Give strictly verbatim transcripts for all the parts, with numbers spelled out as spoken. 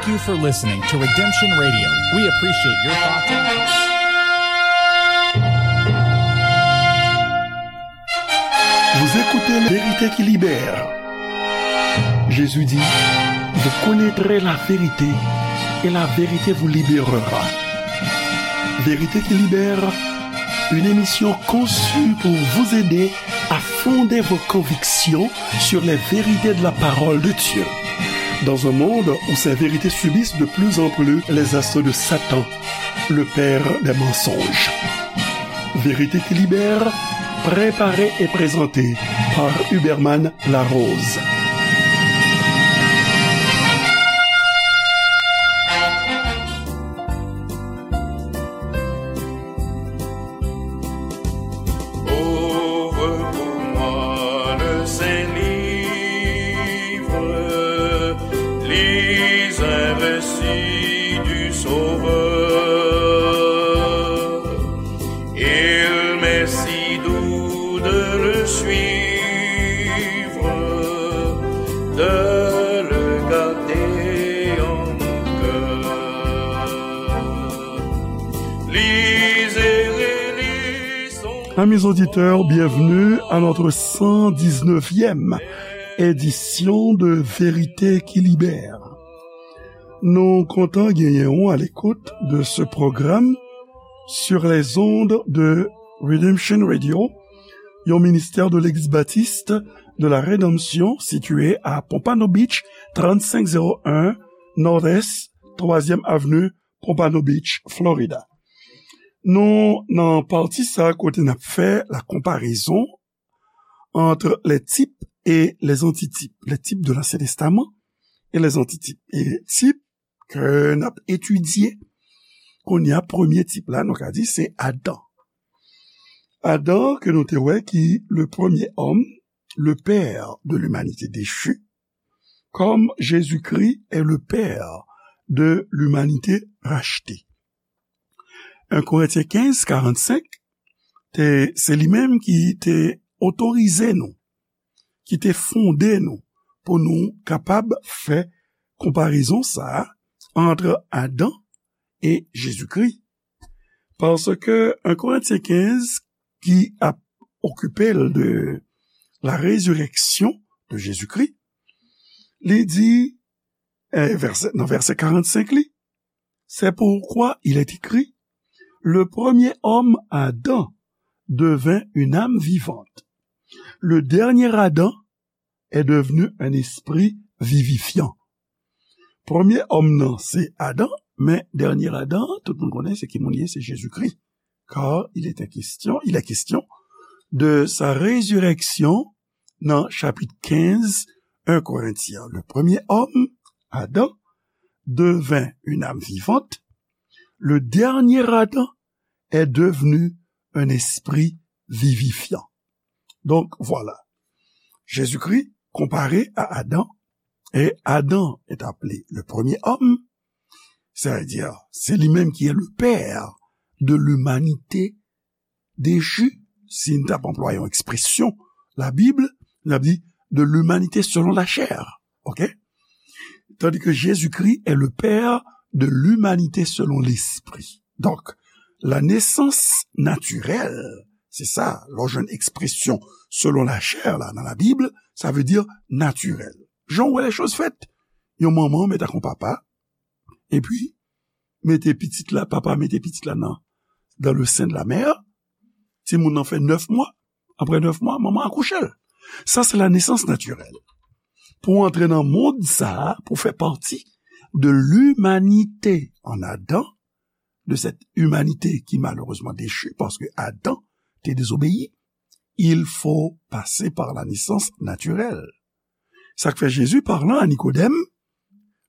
Thank you for listening to Redemption Radio. We appreciate your thoughts and comments. Vous écoutez La Vérité qui libère. Jésus dit, vous connaîtrez la vérité et la vérité vous libérera. Vérité qui libère, une émission conçue pour vous aider à fonder vos convictions sur les vérités de la parole de Dieu. Dans un monde où ces vérités subissent de plus en plus les assauts de Satan, le père des mensonges. Vérité qui libère, préparée et présentée par Huberman Larose. Ouvre pour moi le Saint-Livre, lis un récit du Sauveur. Il m'est si doux de le suivre, de le garder en mon cœur. Lisez et lisons. Amis auditeurs, bienvenue à notre cent dix-neuvième édition de Vérité qui libère. Nou kontan genyen w à l'écoute de ce programme sur les ondes de Redemption Radio, yon ministè de Legliz Batis de la Redanmsyon, sitiye a Pompano Beach, trannsenk zewo en Nord-Est, twazyèm Avni, Pompano Beach, Florida. Nou nan pati sa kote n ap fè la konparezon entre les types et les antitypes, les types de l'Ancien Testament et les antitypes. E tip ke n ap etidye kounye a, premye tip la, nou ka di se Adan. Adan, ke nou te wè ki le premier homme, le père de l'humanité déchue, comme Jésus-Christ est le père de l'humanité rachetée. En Korentyen kenz, karannsenk, te, se li menm ki te otorize nou, ki te fonde nou pou nou kapab fè konparezon sa a entre Adan e Jezikri. Paske en Korentyen kenz, ki ap okipe l de la résurrection de Jésus-Christ, li di, eh, vèsè, nan vèsè karannsenk li, c'est pourquoi il est écrit, le premier homme, Adam, devint une âme vivante. Le dernier Adam est devenu un esprit vivifiant. Premye òm nan, se Adan, men dènye Adan, tout moun konnen se ki moun li ye, se Jezikri. Car il est question, il est question de sa résurrection nan chapit kenz, en Korentyen. Le premier homme, Adam, devint une âme vivante. Le dernier Adam est devenu un esprit vivifiant. Donc, voilà. Jésus-Christ comparé à Adam, et Adam est appelé le premier homme, c'est-à-dire, c'est lui-même qui est le père de l'humanité déchue, si n t ap anplwaye yon ekspresyon Labib, n ap di de l'humanité selon la chair. OK? Tandis que Jésus-Christ est le père de l'humanité selon l'esprit. Donc, la naissance naturelle, se sa, lè w jwenn ekspresyon selon la chair la nan Labib, sa vle di natirèl. Jan w wè lè choz fèt, yon manman mèt ak yon papa, epi mete pitit la, papa mete pitit la nan, dans le sein de la mère, timoun nan fè nèf mwa, apre nèf mwa, manman akouche l. Sa se la naissance naturelle. Pou antre nan mond sa a, pou fè pati de l'humanité en Adam, de cette humanité qui malheureusement déchue, parce que Adam te désobéi, il faut passer par la naissance naturelle. Sa k fè Jésus, parlant à Nicodème,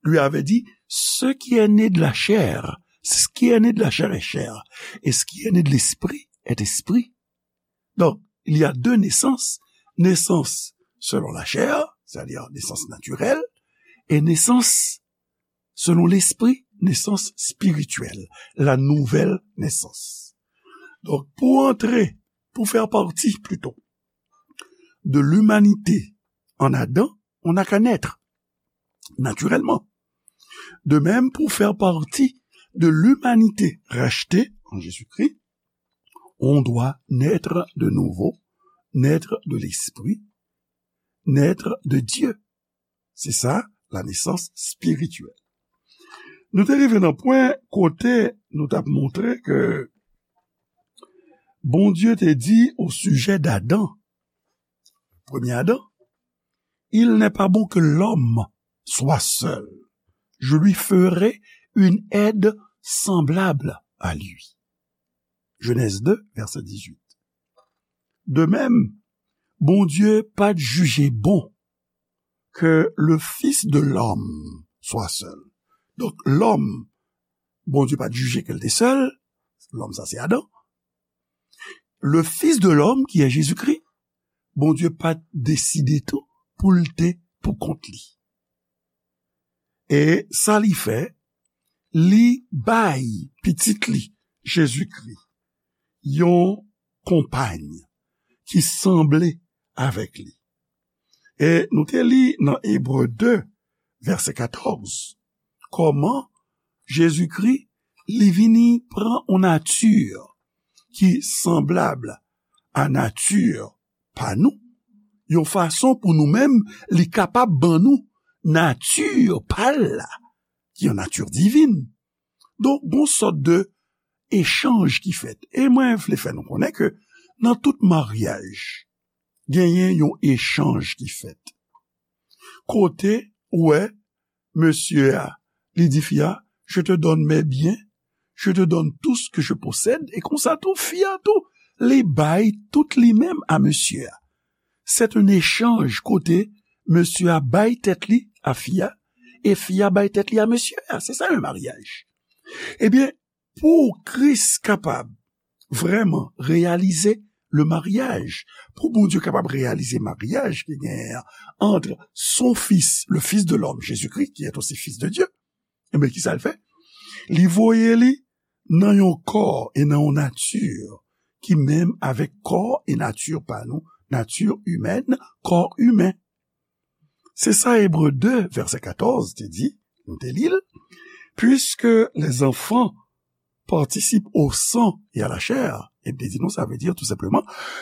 lui avait dit, ce qui est né de la chair, ce qui est né de la chair est chair, et ce qui est né de l'esprit est esprit. Donc, il y a deux naissances, naissance selon la chair, c'est-à-dire naissance naturelle, et naissance selon l'esprit, naissance spirituelle, la nouvelle naissance. Donc, pour entrer, pour faire partie plutôt de l'humanité en Adam, on n'a qu'à naître naturellement. De même, pour faire partie de l'humanité rachetée en Jésus-Christ, on doit naître de nouveau, naître de l'esprit, naître de Dieu. Se sa, la nesans espirityèl. Nou te rive nan pwen kote nou t ap montre ke Bondye te di o sijè d'Adan, premye Adan, il n'est pas bon que l'homme soit seul. Je lui ferai une aide semblable à lui. Genèse deux, verset dix-huit. De même, Bondye pa t jije bon ke le fils de l'homme soit seul. Donk, lòm, Bondye pa t jije ke l te sèl, lòm sa se Adan. Le fils de l'homme, qui est Jésus-Christ, Bondye pa t deside tou pou l te pou kont li. E sa li fè, li bay pitit li, Jezikri, yon konpay ki sanble avèk li. E nou te li nan Ebre de, vèsè katòz, kòman Jezikri, li vini pran yon nati ki sanblab a nati pa nou, yon fason pou nou menm, li kapab ban nou nati pa l la, ki yon nati divin. Donk, gon sòt de echanj ki fèt. E mwen vle fè nou konnen ke nan tout maryaj, genyen yon echanj ki fèt. Kote, ou wè, mesye a, li di fi a, je te donne mes biens, je te donne tout ce que je possède, e konsa tou, fi a tou, li bay tout li menm a mesye a. Se yon echanj kote mesye a bay tèt li a fi a, e fi a bay tèt li a mesye a. Se sa yon maryaj. Ebyen, pou Kris kapab vrèman reyalize le maryaj, pou Bondye kapab reyalize maryaj ki genyen an ant son fis, le Fils de l'homme, Jésus-Christ, qui est aussi Fils de Dieu, ebyen, ki sa l fè? Li voye li nan yon kò e nan yon nati ki menm avèk kò e nati pa nou, nati imèn, kò imen. Se sa Ebre de, vèsè katòz te di, nou te li l, puisque les enfants participent au sang et à la chair. E te di nou, sa vle di tou senpleman,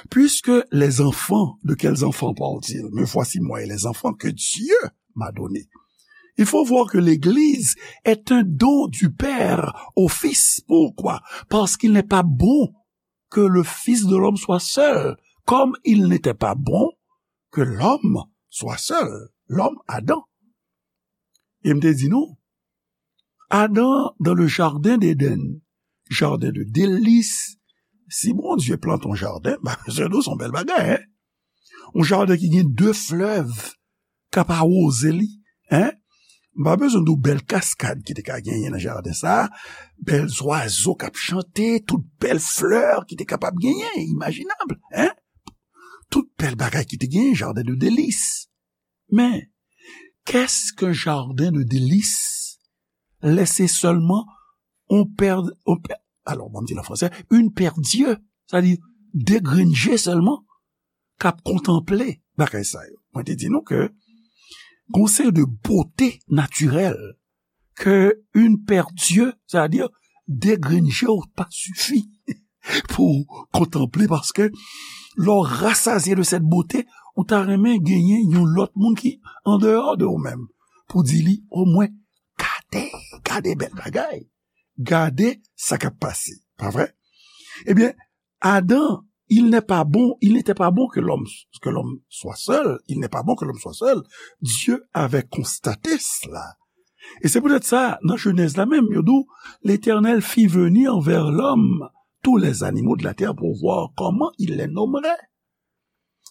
puisque les enfants, de quels enfants parle-t-il? Me voici moi et les enfants que Dieu m'a donnés. Il faut voir que l'Église est un don du Père au Fils. Pourquoi? Parce qu'il n'est pas bon que le Fils de l'homme soit seul, comme il n'était pas bon que l'homme soit seul, l'homme Adam. E m te di nou, Adan, dans le jardin d'Éden, jardin de délices, si Bondye plante yon jaden, ba, se nou, se yon bèl bagay, hein? Yon jaden ki gen de flèv k ap awoze li, hein? M pa bezwen di w bèl kaskad ki te ka genyen nan jaden sa a, bèl zwazo k ap chante, tout bèl flè ki te kapab genyen, imajinab, hein? Tout bèl bagay ki te genyen, jardin de délices. Men, qu'est-ce qu'un jardin de délices? Lè se sèlman on pè, on pè, alò, bon, m di l an fransè, une paire d'yeux, sa di de grenn je sèlman, k ap kontanple bagay sa yo. Mwen te di nou ke gon seri de bote natirèl ke une paire d'yeux, sa di de grenn je w pa sifi pou kontanple, paske lè w rasazye de cette beauté, ou ta renmen genyen yon lòt moun ki andeyò de ou menm, pou di li, omwen, gade, gade bèl bagay, gade sa k ap pase, pa vre? Ebyen, Adan, il n'est pas bon, il n'était pas bon que l'homme, que l'homme soit seul, il n'est pas bon que l'homme soit seul. Dieu avait constaté cela. E se poutèt sa, nan Jenèz la menm, yo di w, L'Éternel fit venir vers l'homme tous les animaux de la terre pour voir comment il les nommerait.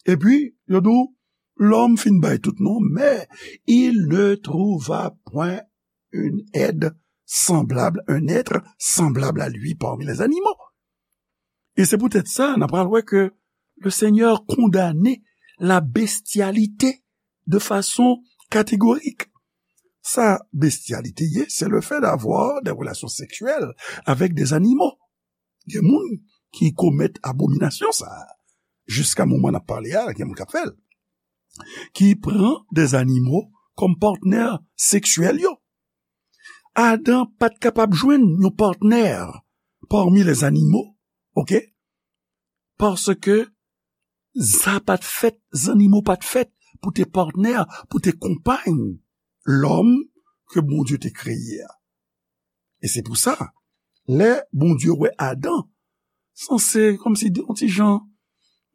Epi, yo di w, lòm fin bay tout non, mais il ne trouva point une aide semblable, un être semblable à lui parmi les animaux. E se poutèt sa, n a pral wè ke le Seigneur kondane la bestialité de façon catégorique. Sa bestialité ye, c'est le fait d'avoir des relations sexuelles avec des animaux. Gen moun ki komèt abominasyon sa a. Jiska moman n ap pale a, gen moun k ap fè l. Ki pran des animaux kòm patnè seksyèl yo. Adan pa t kapab jwenn yon patnè pami lèzanimo, oke? Paske sa pa t fèt, zannimo pa t fèt pou te patnè, pou te konpay lòm ke Bondye te kreye a. E se pou sa, lè Bondye wè Adan, sanse kòmsi yon ti jan,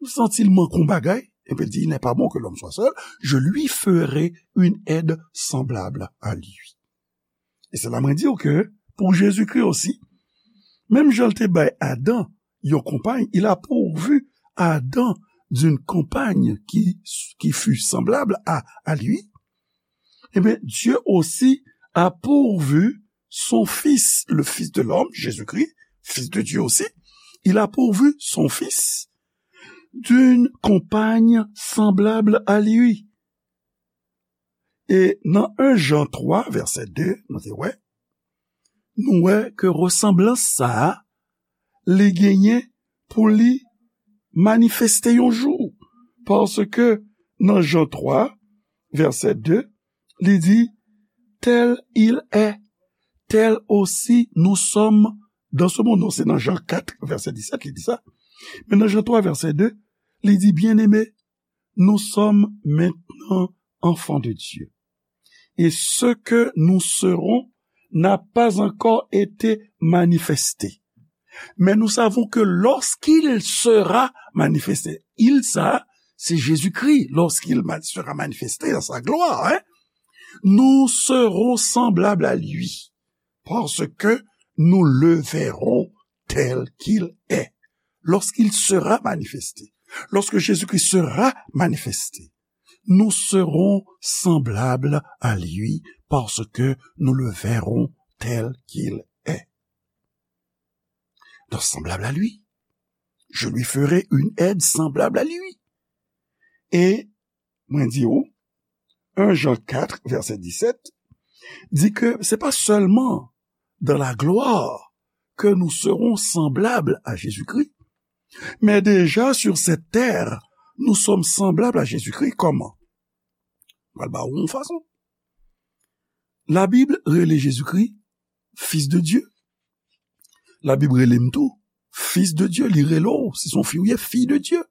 santi l manke yon bagay, epi l di, il n'est pas bon que l'homme soit seul, je lui ferai une aide semblable à lui. E se la mwen di w ke pou Jezikri osi, menm jan l te bay Adan yon konpay, il a pourvu Adam d'une compagne qui, qui fut semblable à, à lui, eh bien, Dieu aussi a pourvu son Fils, le Fils de l'homme, Jésus-Christ, Fils de Dieu aussi, il a pourvu son Fils d'une compagne semblable à lui. E nan en Jan twa, vèsè de, nou te wè, nou wè ke resanblans sa a, li genyen pou li manifeste yon jou. Paske nan Jan twa, vèsè de, li di, tel il est, tel aussi nous sommes dans ce monde. Non, se nan Jan kat, vèsè disèt, li di sa. Men nan Jan twa, vèsè de, li di, bien-aimés, nous sommes maintenant enfants de Dieu. Et ce que nous serons n'a pas encore été manifesté. Mais nous savons que lorsqu'il sera manifesté, il sa, se Jezikri, lorsqu'il ma- sera manifesté dans sa gloire, hein, nous serons semblables à lui, parce que nous le verrons tel qu'il est. Lorsqu'il sera manifesté, lorsque Jésus-Christ sera manifesté, nous serons semblables à lui, parce que nous le verrons tel qu'il est. Donc, semblable à lui. Je lui ferai une aide semblable à lui. E mwen di w, en Jan kat, vèsè disèt, di ke se pa sèlman dans la gloire que nous serons semblables à Jésus-Christ, mais déjà sur cette terre, nous sommes semblables à Jésus-Christ. Kòman? Mwen ba w yon fason. Labib rele Jezikri Fils de Dieu. Labib rele m tou Fils de Dieu. Li rele w, si se yon fi w ye, fille de Dieu.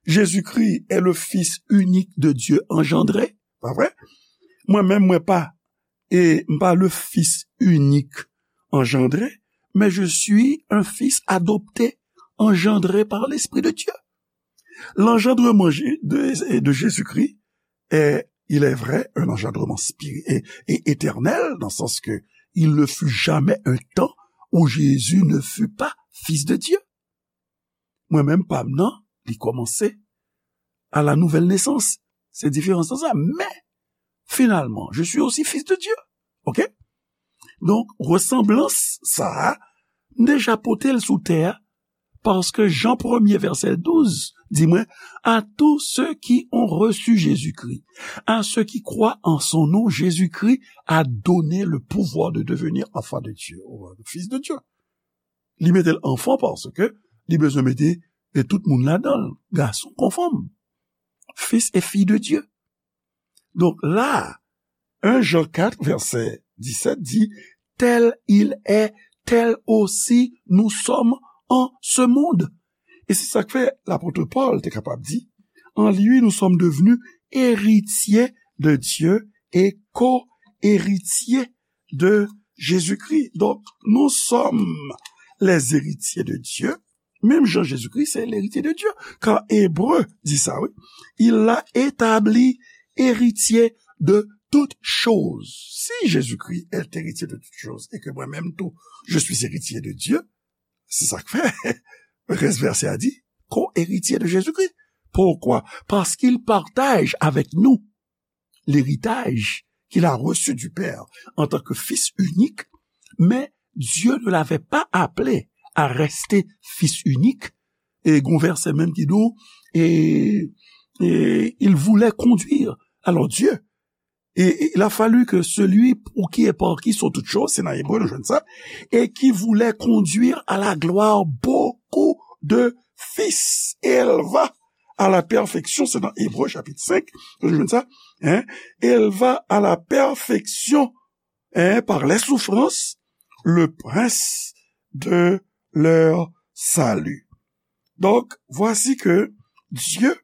Jésus-Christ est le Fils unique de Dieu engendré, pa vre? Mwen menm, mwen pa, e m pa le Fils unique engendré, mais je suis un fils adopté, engendré par l'Esprit de Dieu. L'engendrement Jé- de, de Jésus-Christ est, il est vrai, un engendrement spiri- et, et éternel, dans le sens que il ne fut jamais un temps où Jésus ne fut pas fils de Dieu. Mwen menm, pa m nan, li kòmanse à la nouvelle naissance. Se diferans nan sa. Men, finalman, je suis aussi fils de Dieu. Ok? Donk, resanblans sa a, m deja pote l sou tè a, paske Jan premye, vèsè douz, di mwen, à tous ceux qui ont reçu Jésus-Christ, à ceux qui croient en son nom, Jésus-Christ a donné le pouvoir de devenir enfant de Dieu, ou fils de Dieu. Li mete l enfant paske li bezwen mete, e, tout moun ladan l, gason kon fanm, fils et filles de Dieu. Donk la, en Jan kat, vèsè disèt di, tel il est, tel aussi nous sommes en ce monde. E se sa k fè lapot Pòl te kapab di, en lui nous sommes devenus héritiers de Dieu et co-héritiers de Jésus-Christ. Donc, nous sommes les héritiers de Dieu. Menm jan Jezikri se l'héritier de Dieu. Kan Ebre di sa, wi. Il l'a établi héritier de toutes choses. Si Jésus-Christ est héritier de toutes choses et que moi-même tout, je suis héritier de Dieu, se sa k fè rès vèsè a di, co-héritier de Jésus-Christ. Pourquoi? Parce qu'il partage avec nous l'héritage qu'il a reçu du Père en tant que fils unique, mais Dieu ne l'avait pas appelé à rester fils unique. E gon vèsè menm ki di w, e, e il voulait conduire. Alors Dieu, et, et il a fallu que celui pour qui et par qui sont toutes choses, se nan Ebre nou jwenn sa, et qui voulait conduire à la gloire beaucoup de fils, éleva à la perfection, se nan Ebre chapit senk nou jwenn sa, hein, éleva à la perfection, et par les souffrances, le prince de leur salut. Donc, voici que Dieu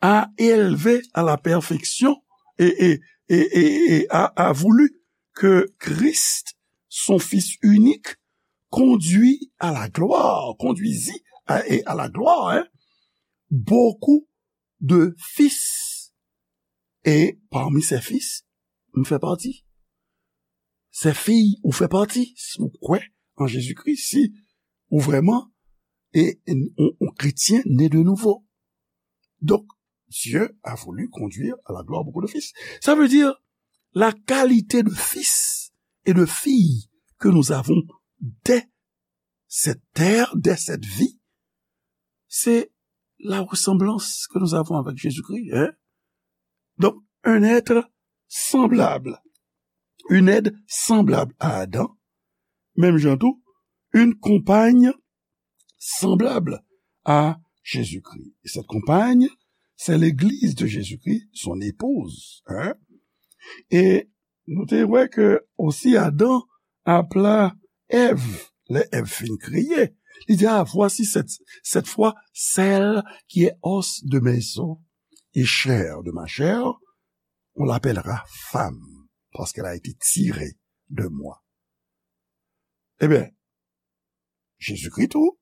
a élevé à la perfection et, et, et, et, et a, a voulu que Christ, son Fils unique, conduit à la gloire, conduisit à, et à la gloire, hein, beaucoup de fils. Et parmi ces fils, m fè pati. Ces filles, ou fè pati. Si ou kwè an Jezikri, si ou vrèman e, on, on kretyen né de nouveau. Donc, Dieu a voulu conduire à la gloire beaucoup de fils. Ça veut dire la qualité de fils et de fille que nous avons dès cette terre, dès cette vie, c'est la ressemblance que nous avons avec Jésus-Christ. Hein? Donc, un être semblable, une aide semblable à Adam, menm jan tou, une compagne semblable à Jésus-Christ. Et cette compagne, c'est l'église de Jésus-Christ, son épouse. Hein? E nou te wè ke osi Adan apla Èv, lè Èv fin kreye, li di, ah, voici cette, cette fois celle qui est os de mes os et chair de ma chair, on l'appellera femme, parce qu'elle a été tirée de moi. Ebyen, Jezikri tou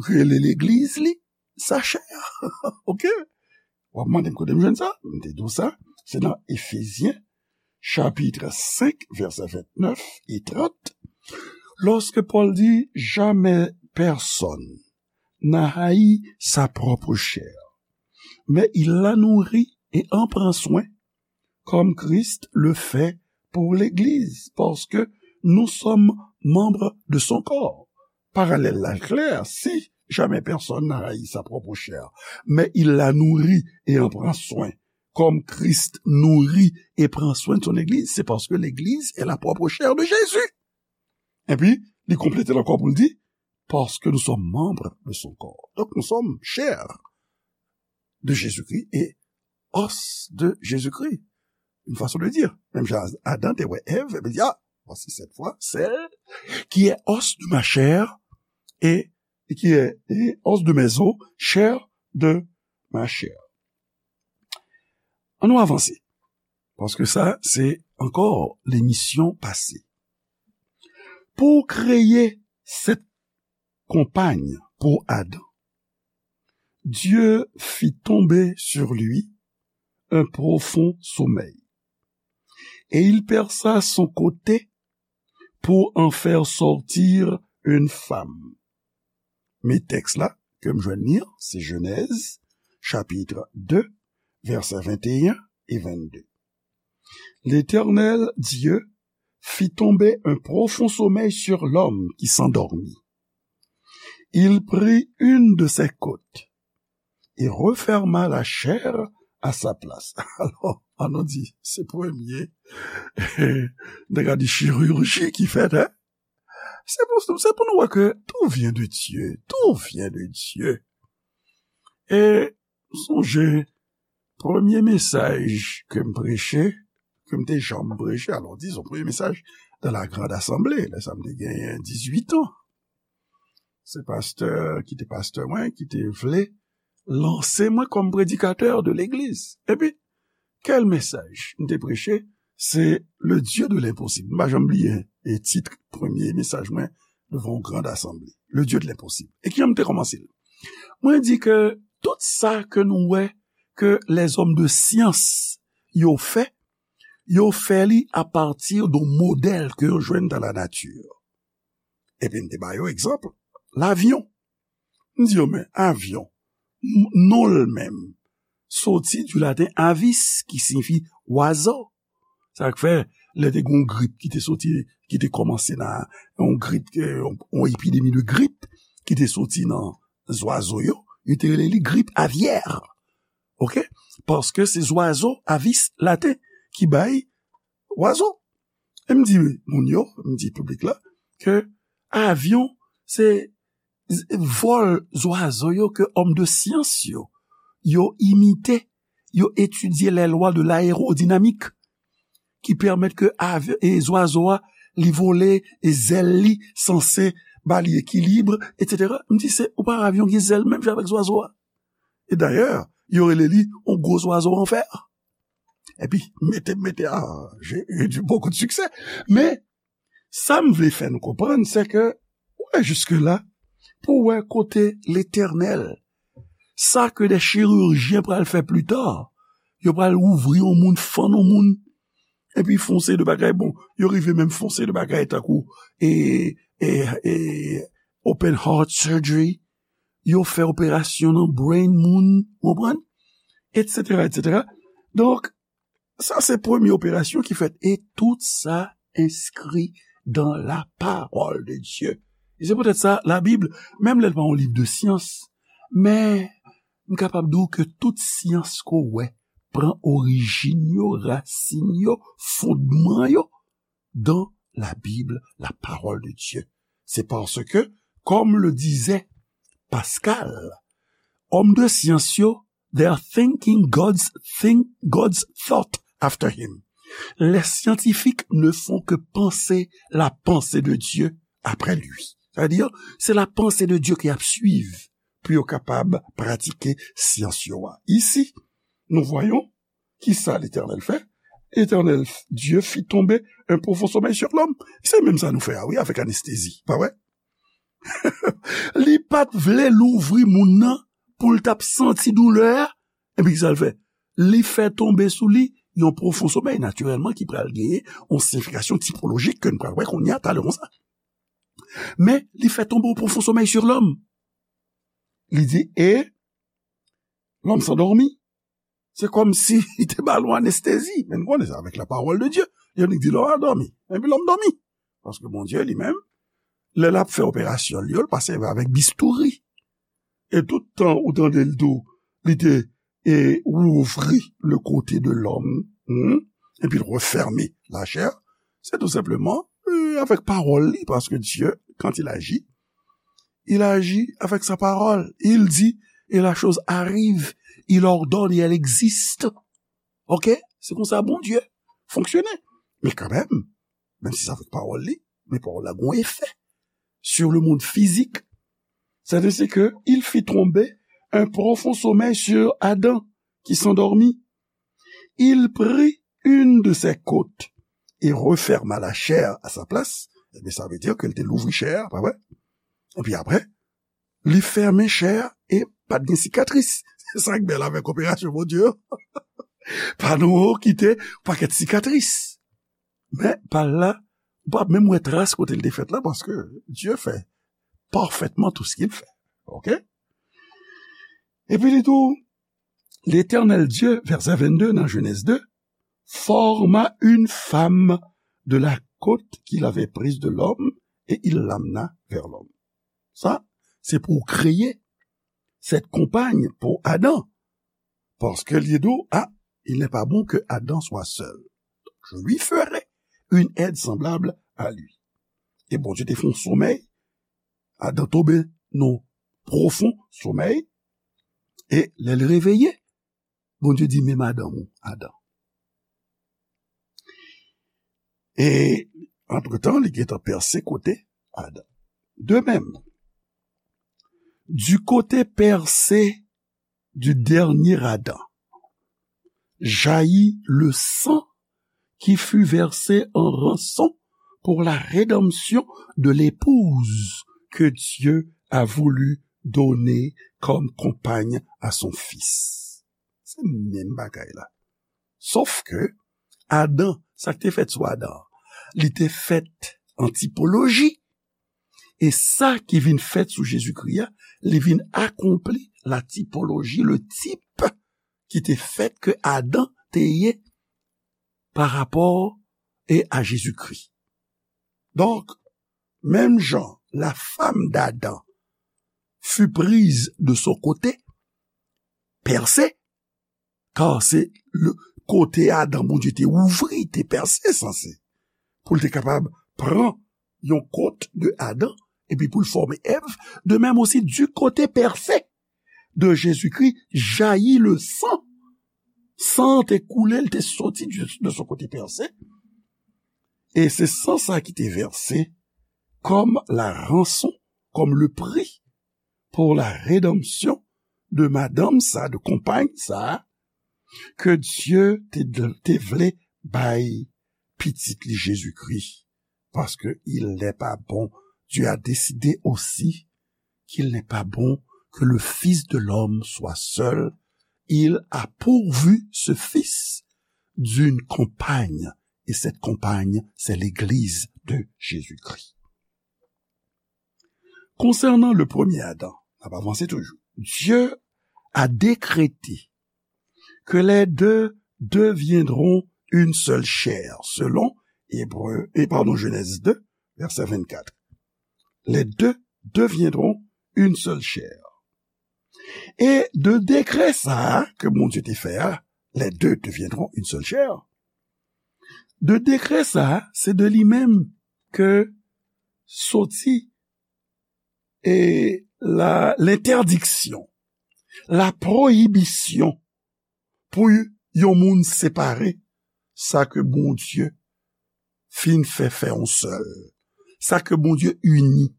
rele legliz li sa chè. Ok? W ap mande m kote m jwenn sa? M te di w sa. Se nan Efezyen, chapit senk, vèsè vennèf e trant. Lorsque Paul dit, jamais personne n'a haï sa propre chair, mais il la nourrit et en prend soin, comme Christ le fait pour l'Église, parce que nous sommes membres de son corps. Parallèle là clair, si jamais personne n'a haï sa propre chair, mais il la nourrit et en prend soin, comme Christ nourrit et prend soin de son Église, c'est parce que l'Église est la propre chair de Jésus. Epi, li konplete l ankò pou l di, parce que nous sommes membres de son corps. Donc, nous sommes chair de Jésus-Christ et os de Jésus-Christ. Une façon de dire. Menm jan Adan te wè Èv, epi di, ah, voici cette fois celle qui est os de ma chair et, et qui est et os de mes os, chair de ma chair. Ann nou avanse. Paske sa, se ankò lemisyon pase. Pou kreye cette compagne pour Adam, Dieu fit tomber sur lui un profond sommeil. Et il perça son côté pour en faire sortir une femme. Men tèks la ke m jwenn li an, se Jenèz, chapit de, vèsè venteyen e vennde. L'Éternel Dieu fit tomber un profond sommeil sur l'homme qui s'endormit. Il prit une de ses côtes et referma la chair à sa place. Alò, ann nou di, se premye nèg a di chirurji ki fèt, hein? Se pou, se pou nou wè ke tout vient de Dieu, tout vient de Dieu. E sonje, premye mesaj ke m preche, ke m te janm preche, alò, dizon, premye mesaj dans la grande assemblée, lè sa m te genyen dizuit an. Se pastè ki te pastè mwen, ki te vle lanse mwen kòm predikatè de legliz. Epi, kèl mesaj m te preche? Se le Dieu de l'impossible. M pa janm bliye e tit premye mesaj mwen devan yon grand assemblée. Le Dieu de l'impossible. E kijan m te kòmanse l? Mwen di ke tout sa ke nou wè ke lèzòm de syans yo fè, yo fè li apati de modèl ke yo jwenn dans la nature. Epi m te ba yo egzanp, lavyon. M di yo, men avyon, m-, non l menm, soti du latin avis, ki siyifi wazo. Sa k fè, lè te gen yon grip ki te soti, ki te kòmanse nan yon grip, yon, yon epidemi de grip ki te soti nan zwazo yo, yo te rele li grip avyè. Ok? Paske se zwazo, avis, laten, ki bay wazo. E m di moun yo, m di piblik la, ke avyon, se z-, vòl zwazo yo ke òm de syans yo, yo imite, yo etidye les lois de l'aérodynamique, ki pèmèt ke avy- e zwazo a, li vole, e zèl li sanse ba li ekilib, etsetera. M di, se, ou pa avyon gen zèl menm jan avèk zwazo a. E dayè, yo rele li yon gwo zwazo an fè. Epi, mete, mete, ah, j'ai eu du, beaucoup de succès. Men, sa m vle fè nou konprann, se ke, ou wè jiske la, pou wè kote Letènèl, sa ke de chirijyen pral fè pli ta, yo pral ouvri yon moun, fann yon moun, epi fè yon seri de bagay, bon, yo rive menm fè yon seri de bagay tankou, e, e, e, open heart surgery, yo fè operasyon nan brain moun, ou konprann? Etsetera, etsetera. Donk, sa se premye operasyon ki fèt, e tout sa enskri dans la parole de Dieu. E se poutèt sa, Labib, menm lè l pa yon liv de syans, men m kapab di w ke tout syans ke w wè pran orijin yo, rasin yo, fondman yo, dans la Bible, la parole de Dieu. C'est parce que, comme le disait Pascal, òm de syans yo, they are thinking God's think, God's thought after him. Les scientifiques ne font que penser la pensée de Dieu après lui. Sa vle di, se la pensée de Dieu ke y ap swiv pou yo kapab pratike syans yo a. Ici, nous voyons ki sa Letènèl fè? Letènèl Dye fit tonbe un profond sommeil sur l'homme. Se menm sa nou fè a, wi, avèk anestezi, pa vre? Li pa t vle louvri moun nan pou l t ap santi doulè a. Epi ki sa l fè? Li fè tonbe sou li yon pwofon somèy, natirèlman, ki pral genyen yon siyifikasyon tipolojik ke n pral wè kounye a, talè konsa. Men, li fè tonbe yon pwofon somèy sur l'homme. Li di, et l'homme s'endormit. Se kòmsi li te ba l yon anestezi. Men nou konnen sa, avec la parole de Dieu. Li annik di, l'homme a dormi. Epi lòm dòmi. Paske Bondye li menm, lè l ap fè operasyon li yo, l pa sèvi avèk bistouri. E tout tan ou tande l tou, li te, e, ouvri le côté de l'homme, hmm, epi l referme la chair, se tou senpleman, e, avèk pawòl li, paske Dye, quand il agit, il agit avec sa parole. Il dit, et la chose arrive. Il ordonne et elle existe. Ok? Se konsa Bondye fonksyone. Men kanmenm, menm si se avèk pawòl li, men pawòl la gon efè sur le monde physique. C'est ainsi que il fit tomber un profond sommeil sur Adam, qui s'endormit. Il prit une de ses côtes et referma la chair à sa place. Ebyen, sa vle di ke l te louvri chè a, pa vre? Epi apre, li fèmen chè a e pa t gen sikatris. Se sa k bèl avèk operasyon Bondye yo. Pa nou kite pakèt sikatris. Men, pa l la, ou p ap menm wè tras kote l te fèt la, paske Dye fait parfaitement tout ce qu'il fait. Ok? Epi li tou, L'Éternel Dieu, verset vingt-deux nan Genèse deux, forma une femme de la côte qu'il avait prise de l'homme et il l'amena vers l'homme. Sa, se pou kreye cette compagne pour Adam. Paske li di w, ah, il n'est pas bon que Adam soit seul. Je lui ferai une aide semblable à lui. E Bondye te fè yon somèy, Adan tonbe nan pwofon somèy, e lè l reveye, Bondye di, men madanm ou, Adan. E, antretan, li gentan pèse kote Adan. De même, du côté percé du dernier Adam jaillit le sang qui fut versé en rançon pour la rédemption de l'épouse que Dieu a voulu donner comme compagne à son fils. Se menm bagay la. Sof ke Adan, sa k te fèt sou Adan, li te fèt an tipoloji. E sa ki vin fèt sou Jezikri a, li vin akonpli la tipoloji, le tip ki te fèt ke Adan te ye pa rapò e a Jezikri. Donk, menm jan la femme d'Adam fut prise de son côté percé, kar se le kote Adan Bondye te ouvri, te pèse sanse, pou l te kapab pran yon kot de Adan, epi pou l fòme Èv, de même aussi du côté percé de Jésus-Christ jaillit le sang. San an te koule, l te soti de, de son côté percé, E se san sa ki te vèse kòm la ranson, kòm le pri pou la redanmsyon de madanm sa, de konpay sa, ke Dye te, te vle bay pitit li Jezikri, paske il n'est pas bon. Dieu a décidé aussi qu'il n'est pas bon que le Fils de l'homme soit seul. Il a pourvu ce Fils d'une compagne, et cette compagne, c'est l'Église de Jésus-Christ. Konsènan le premye Adan, n ap avanse toujou. Dieu a décrété que les deux deviendront une seule chair, selon Hébreu, et pardon, Genèse deux, verset vingt-quatre. Les deux deviendront une seule chair. E de dekrè sa a ke Bondye te fè a, les deux deviendront une seule chair. De dekrè sa a, se de li menm ke soti e la, lentèdiksyon, la pwoyibisyon pou yon moun separe sa ke Bondye fin fè, fè yon sèl, sa ke Bondye ini.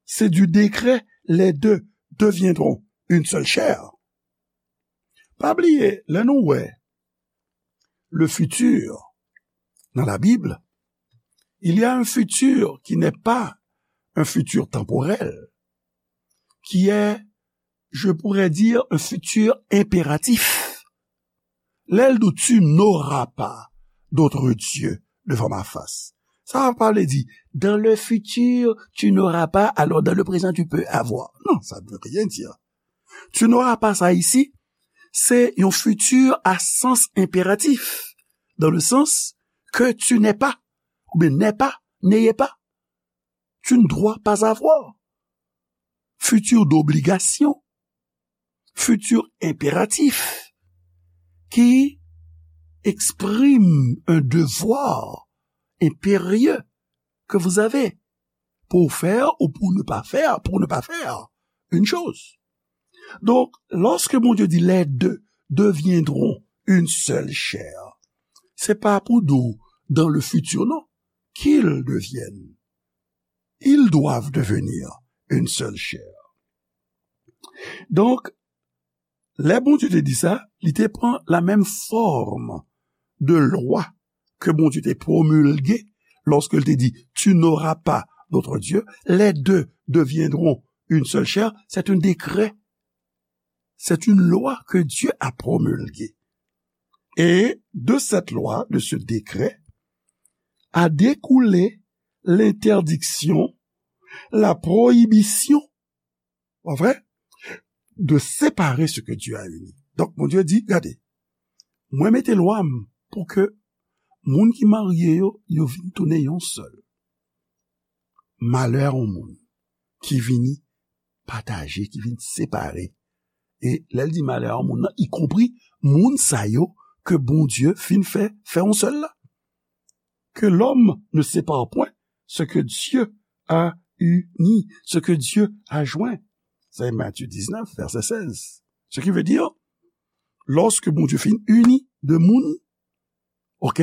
C'est du décret, les deux deviendront une seule chair. Pa bliye, lè nou wè le futur dans la Bible, il y a un futur qui n'est pas un futur temporel, qui est, je pourrais dire, un futur impératif. Lè l di, tu n'auras pas d'autre Dieu devant ma face. Sa pa vle di, dans le futur, tu n'auras pas, alors dans le présent, tu peux avoir. Non, ça ne veut rien dire. Tu n'auras pas sa isi, se yon futur à sens impératif, dans le sens que tu n'es pas, oubyen n'est pas, n'ayez pas. Tu ne dois pas avoir. Futur d'obligation, futur impératif, qui exprime un devoir impérieux que vous avez pour faire ou pour ne pas faire, pour ne pas faire une chose. Donc, lorsque Bondye di, les deux deviendront une seule chair, se pa pou di w dans le futur, non. Qu'ils deviennent. Ils doivent devenir une seule chair. Donk, lè Bondye te di sa, li te pran la menm fòm de lwa ke Bondye te pwomilge lòske l te di, tu n'auras pas d'autre Dieu, les deux deviendront une seule chair, c'est un décret. C'est une loi que Dieu a promulguée. Et de cette loi, de ce décret, a découlé l'interdiction, la prohibition, pa vre, de séparer ce que Dieu a uni. Donk, Bondye di, gade, mwen mete lwa m pou ke moun ki marye yo, yo vin tounen yon sèl. Malè a yon moun ki vini pataje, ki vin separe. E lè l di malè a yon moun nan, ikonpri moun sa yo ke Bondye fin fè, fè yon sèl la. Que l'homme ne sépare point ce que Dieu a uni, ce que Dieu a joint. C'est Matthieu dix-neuf, verset seize. Ce qui veut dire, lorsque Bondye fin uni de moun, ok,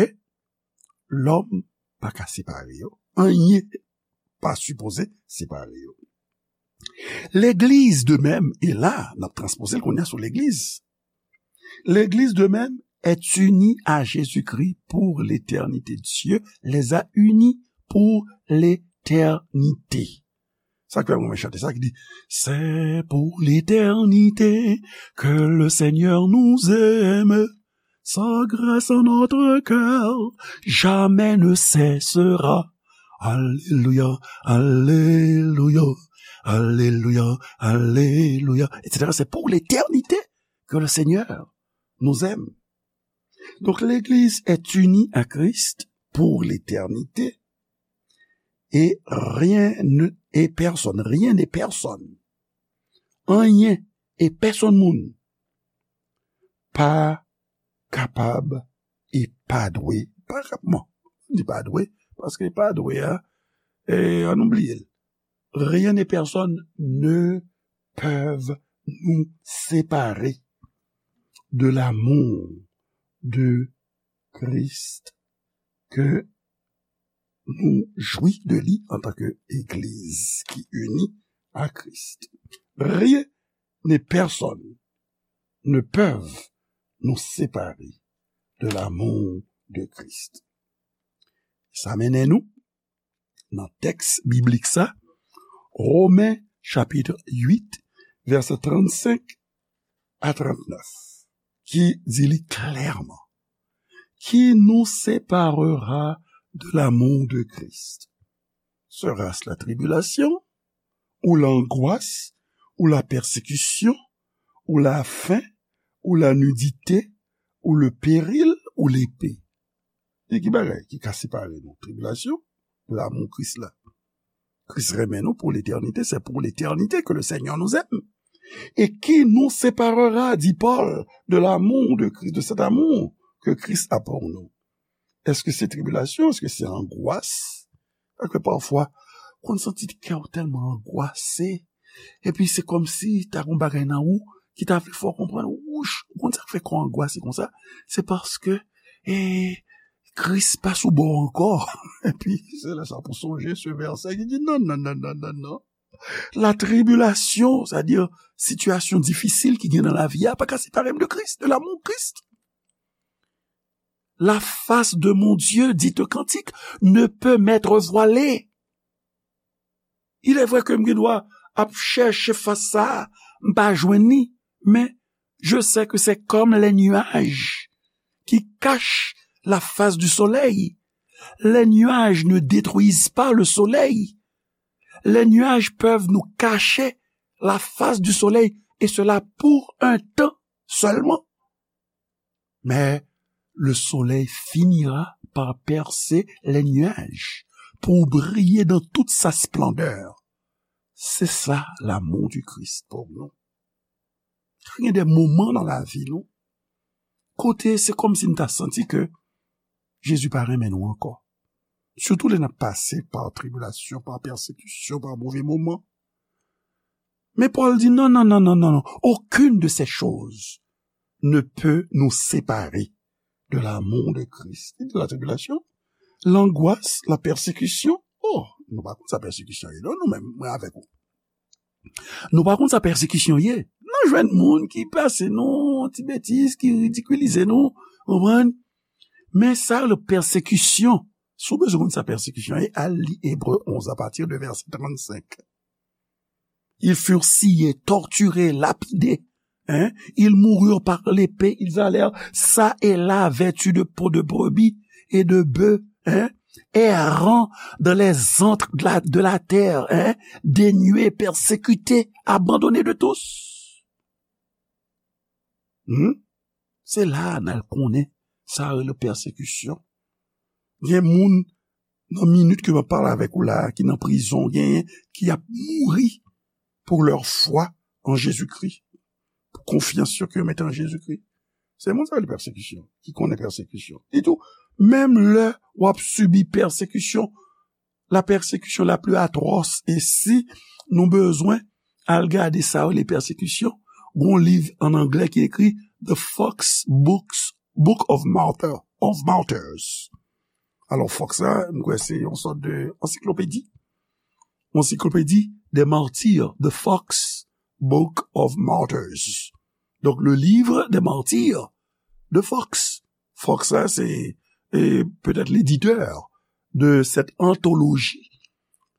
lòm pa ka separe yo. Anyen pa sipoze separe yo. Legliz de menm, e la, n ap transpoze l kounye a sou legliz. Legliz de menm est unie à Jésus-Christ pour l'éternité. Dieu les a unis pour l'éternité. Sa k fè mwen chante sa ki di, c'est pour l'éternité que le Seigneur nous aime. Sa grâce en notre cœur jamais ne cessera. Alléluia, alléluia, alléluia, alléluia, et cetera. C'est pour l'éternité que le Seigneur nous aime. Donc, l'Église est unie à Christ pour l'éternité. Et rien ne, et personne, rien et personne, anyen e pèsonn moun pa kapab e pa dwe, pa kap-, bon, di pa dwe, paske pa dwe a, e, ann nou bliye l. Rien et personne ne peuvent nous séparer de l'amour de Christ que nou jwi de li antanke egliz ki ini a Kris. Rien ni pèsonn ne peuvent nous séparer de l'amour de Christ. Sa mennen nou nan tèks biblik sa, Romen chapit uit, vèsè trannsenk a trannèf, ki di li klèman: Qui nous séparera de l'amour de Christ? Sera-ce la tribulation, ou l'angoisse, ou la persécution, ou la faim, ou la nudité, ou le péril, ou l'épée? E ki bagay ki ka separe nou? Tribilasyon, lanmou Kris la. Kris renmen nou pou letènite, c'est pour l'éternité que le Seigneur nous aime. Et qui nous séparera, dit Paul, de l'amour de Christ, de cet amour que Christ a pour nous? Èske se tribilasyon? Èske se angwas? Paske pafwa, konn santi kè w tèlman angwase, epi se kòmsi ta gon bagay nan ou ki ta vle fè w konprann, wouch, ou konn sa k fè kò w angwase konsa? Se paske, e, Kris pa sou bò w ankò. Epi, se lè sa pou sonje se vèsè ki di, non, non, non, non, non, non. La tribilasyon, sètadi sitiyasyon difisil ki gen nan lavi a, pa ka separe m de Kris, de l'amour Christ. La face de mon Dieu, dit un cantique, ne peut m'être voilée. Il est vrai ke m gen dwa ap chèche fas sa a, m pa jwenn li, men je sais que c'est comme les nuages qui cachent la face du soleil. Les nuages ne détruisent pas le soleil. Les nuages peuvent nous cacher la face du soleil, et cela pour un temps seulement. Mais le soleil finira par percer les nuages pour briller dans toute sa splendeur. C'est ça l'amour du Christ pour nous. Gen de moman nan lavi nou, kote se kòmsi n ta santi ke Jezi pa renmen nou ankò. Sitou lè n ap pase pa tribilasyon, pa pèsekisyon, pa move moman. Men Pòl di, non, non, non, non, non, non. Aucune de ces choses ne peut nous séparer de l'amour de Christ. Li di la tribilasyon, langwas, la pèsekisyon. Oh, nou pa konn sa pèsekisyon ye, non, nou menm, mwen avèk ou. Nou pa konn sa pèsekisyon ye. N a jwenn moun ki pase nou, ti betiz, ki ridikilize nou, konprann? Men sa, le pèsekisyon, si w bezwen konn sa pèsekisyon ye, al li Ebre onz, à partir de verset trannsenk. Ils furent sciés, torturés, lapidés. Hein? Ils moururent par l'épée, ils allèrent çà et là, vêtus de peaux de brebis et de bœufs, hein? Errant dans les antres de la, de la terre, hein? Dénués, persécutés, abandonnés de tous. Hmm? Se la a n al konnen sa rele pèsekisyon. Gen moun nan minit ke m ap pale avèk ou la a, ki nan prizon, genyen ki ap mouri pour leur foi en Jésus-Christ, pou konfyans yo ke yo mete an Jezikri. Se moun sa yo li pèsekisyon, ki konnen pèsekisyon. Li tou, menm lè w ap sibi pèsekisyon, la persécution la plus atroce, e si nou bezwen al gade sa yo li pèsekisyon, gon liv an anglè ki ekri The Fox Books, Book of Martyr, of Martyrs. Alò, Fox la, m kwè se yon sòt de ansiklopedi. Ansiklopedi des martyrs, The Fox Book of Martyrs. Donc, le livre des martyrs de Fox. Fox la, se, e, peut-être l'éditeur de cette anthologie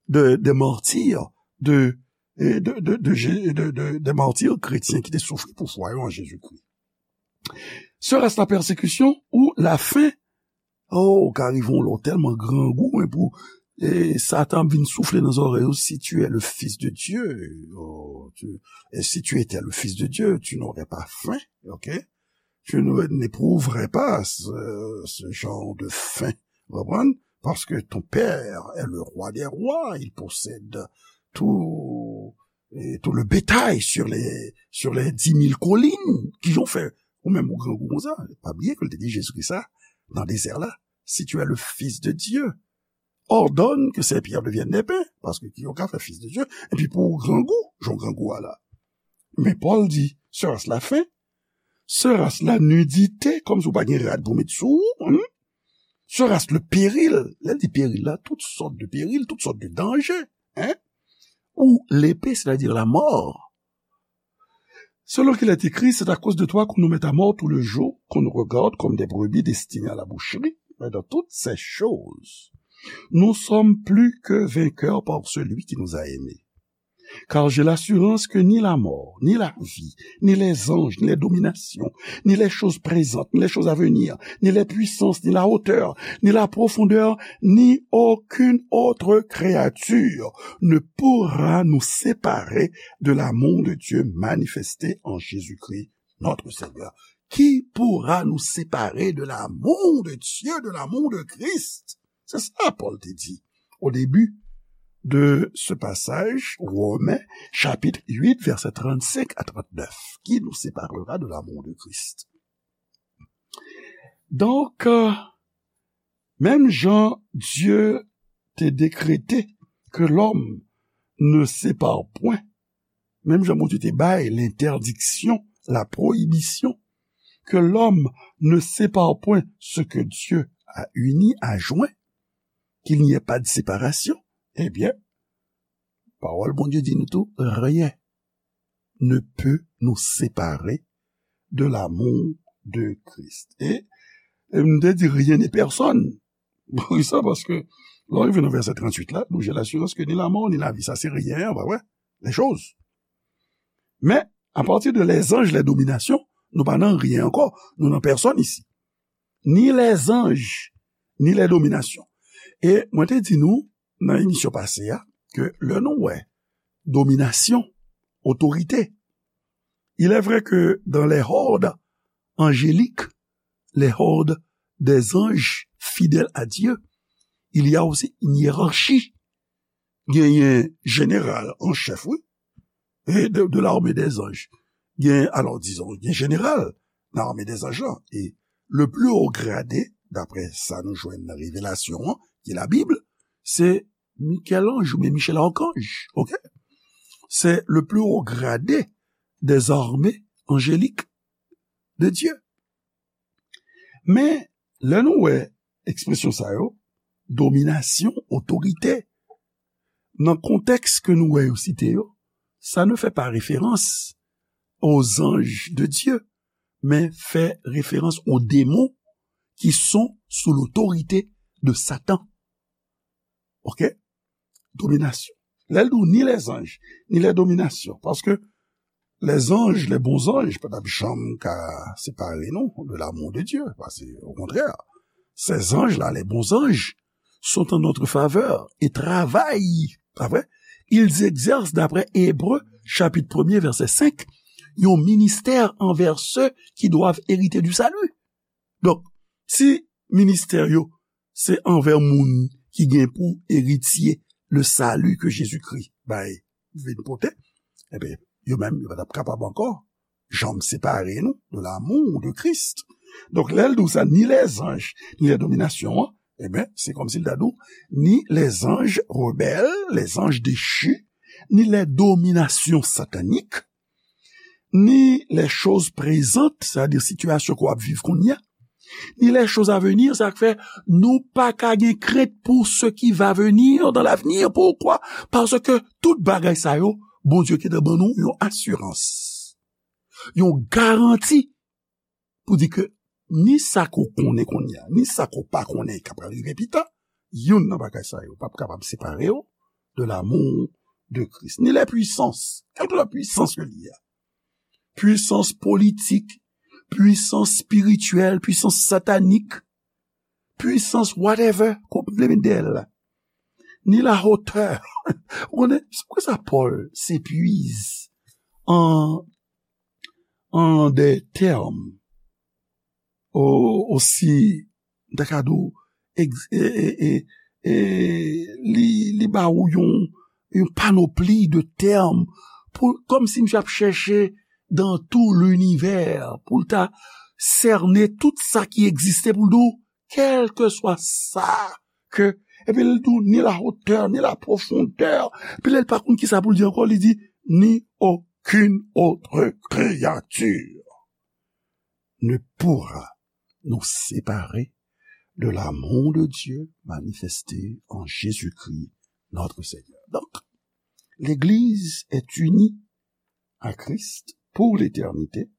de, des martyrs de, e, de, de, de Jé-, de, de, des martyrs chrétiens ki te soufri pou fwa yo an Jezikri. Sera-ce la persécution ou la faim? Oh, ka rive yon lè w tèlman grangou, men pou, e, Satan ap vin soufle nan zòrèy ou, si tu es le fils de Dieu, oh, tu, et si tu étais le fils de Dieu, tu n'aurais pas faim, ok? Tu ne, n'éprouverais pas ce, ce genre de faim, vous comprenez? Parce que ton père est le roi des rois, il possède tout, et tout le bétail sur les, sur les dix mille collines. Kijan w fè, ou menm ou grangou konsa? Pa bliye ke l te di Jezikri sa nan dezè la, si tu es le fils de Dieu, ordonne que ces pierres deviennent des pains, paske ki yo ka fè fils de Dieu, epi pou w grangou, jan w grangou a la. Men Pòl di, sera-ce la faim? Sera-ce la nudité? Kòmsi w pa gen rad pou met sou ou, hmm? sera-ce le péril, lè l di peril la, tout sòt de peril, tout sòt de danje, hein, ou l'épée, c'est-à-dire la mort. Selon qu'il est écrit, c'est à cause de toi qu'on nous met à mort tout le jour, qu'on nous regarde comme des brebis destinées à la boucherie. Mais dans toutes ces choses, nous sommes plus que vainqueurs par celui qui nous a aimés. Car j'ai l'assurance que ni la mort, ni la vie, ni les anges, ni les dominations, ni les choses présentes, ni les choses à venir, ni les puissances, ni la hauteur, ni la profondeur, ni aucune autre créature ne pourra nous séparer de l'amour de Dieu manifesté en Jésus-Christ, notre Seigneur. Qui pourra nous séparer de l'amour de Dieu, de l'amour de Christ? C'est ça, Paul te dit au début de ce passage, Romains chapitre huit, versets trente-cinq à trente-neuf. Qui nous séparera de l'amour de Christ? Donk, euh, menm jan Dye te dekrete ke lòm ne separe point, menm jan Bondye te bay l'interdiction, la prohibition, que l'homme ne sépare point ce que Dieu a uni, a joint, qu'il n'y ait pas de séparation, eh bien, pawòl Bondye di nou tou, rien ne peut nous séparer de l'amour de Christ. E, e m te di rien ni pèsòn. Poukisa? Paske lè w rive nan vèsè tranntuit la, nou, j'ai l'assurance que ni la mort, ni la vie, sa se rien, pa vre? Les choses. Men, apati de les anges, les dominations, nou pa nan rien ankò. Nou nan pèsòn isi. Ni les anges, ni les dominations. E mwen te di nou, nan emisyon pase a, ke lè nou wè dominasyon, otorite, il est vrai que dans les hordes angéliques, les hordes des anges fidèles à Dieu, il y a aussi une hiérarchie. Genyen jeneral an chèf, wi, e de, de l'armée des anges. Gen, alò, dizon, gen jeneral nan armée des anges lan. E le plus haut gradé, daprè sa nou jwenn nan Revelasyon an, ki Labib, se Michel-Ange oubyen Michel Archange, ok? C'est le plus haut gradé des armées angéliques de Dieu. Men, lè nou wè ekspresyon sa yo, dominasyon, otorite, nan kontèks ke nou wè yo site yo, ça ne fait pas référence aux anges de Dieu, mais fait référence aux démons qui sont sous l'autorité de Satan. Ok? Dominasyon. Lè l di w ni les anges, ni les dominations, paske les anges, les bons anges, pa t ap janm ka separe nou de l'amour de Dieu, paske, au contraire, ces anges-là, les bons anges, sont en notre faveur et travaillent, pa vre? Ils exercent, d'après Hébreux, chapitre premier, verset cinq, yon ministè envè ceux qui doivent hériter du salut. Donk, si ministè yo se anvè moun ki gen pou eritye le salut que Jésus-Christ bay, vin pote, ebyen, yo menm, yo pa t ap kapab ankò janm separe nou de l'amour de Christ. Donk, lè l di w sa, ni les anges, ni les dominations, an, ebyen, se kòmsi l ta di w, ni les anges rebelles, les anges déchus, ni les dominations sataniques, ni les choses présentes, c'est-à-dire sitiyasyon ke w ap viv kounye a, ni les choses à venir, sa k fè nou pa ka gen krent pour ce qui va venir dans l'avenir. Pourquoi? Paske tout bagay sa yo, Bondye gentan ban nou yon asirans, yon garanti pou di ke ni sa ke w konnen kounye a, ni sa ke w pa konnen k ap rive pita, youn nan bagay sa yo p ap kapab separe w de l'amour de Christ. Ni les puissances, kèlkeswa pwisans yo li ye a, pwisans politik, pwisans espirityèl, pwisans satanik, pwisans whatever, ke w vle met dèyè l la. Ni la hauteur. Ou konnen, se poukisa Pòl s'épuise en, en des termes o-, aussi, m ta ka di w, ex-, e, e, e, e, li, li ba ou yon, yon panopli de tèm, pou, kòmsi misye ap chèche dans tout l'univers, pou l ta sène tout sa ki egziste, pou l di w, kèlkeswa sa ke, epi l di w, ni la hauteur, ni la profondeur, epi lè l pa konn kisa pou l di ankò, li di, ni aucune autre créature ne pourra nous séparer de l'amour de Dieu manifesté en Jésus-Christ notre Seigneur. Donc, l'Église est unie à Christ pour l'éternité,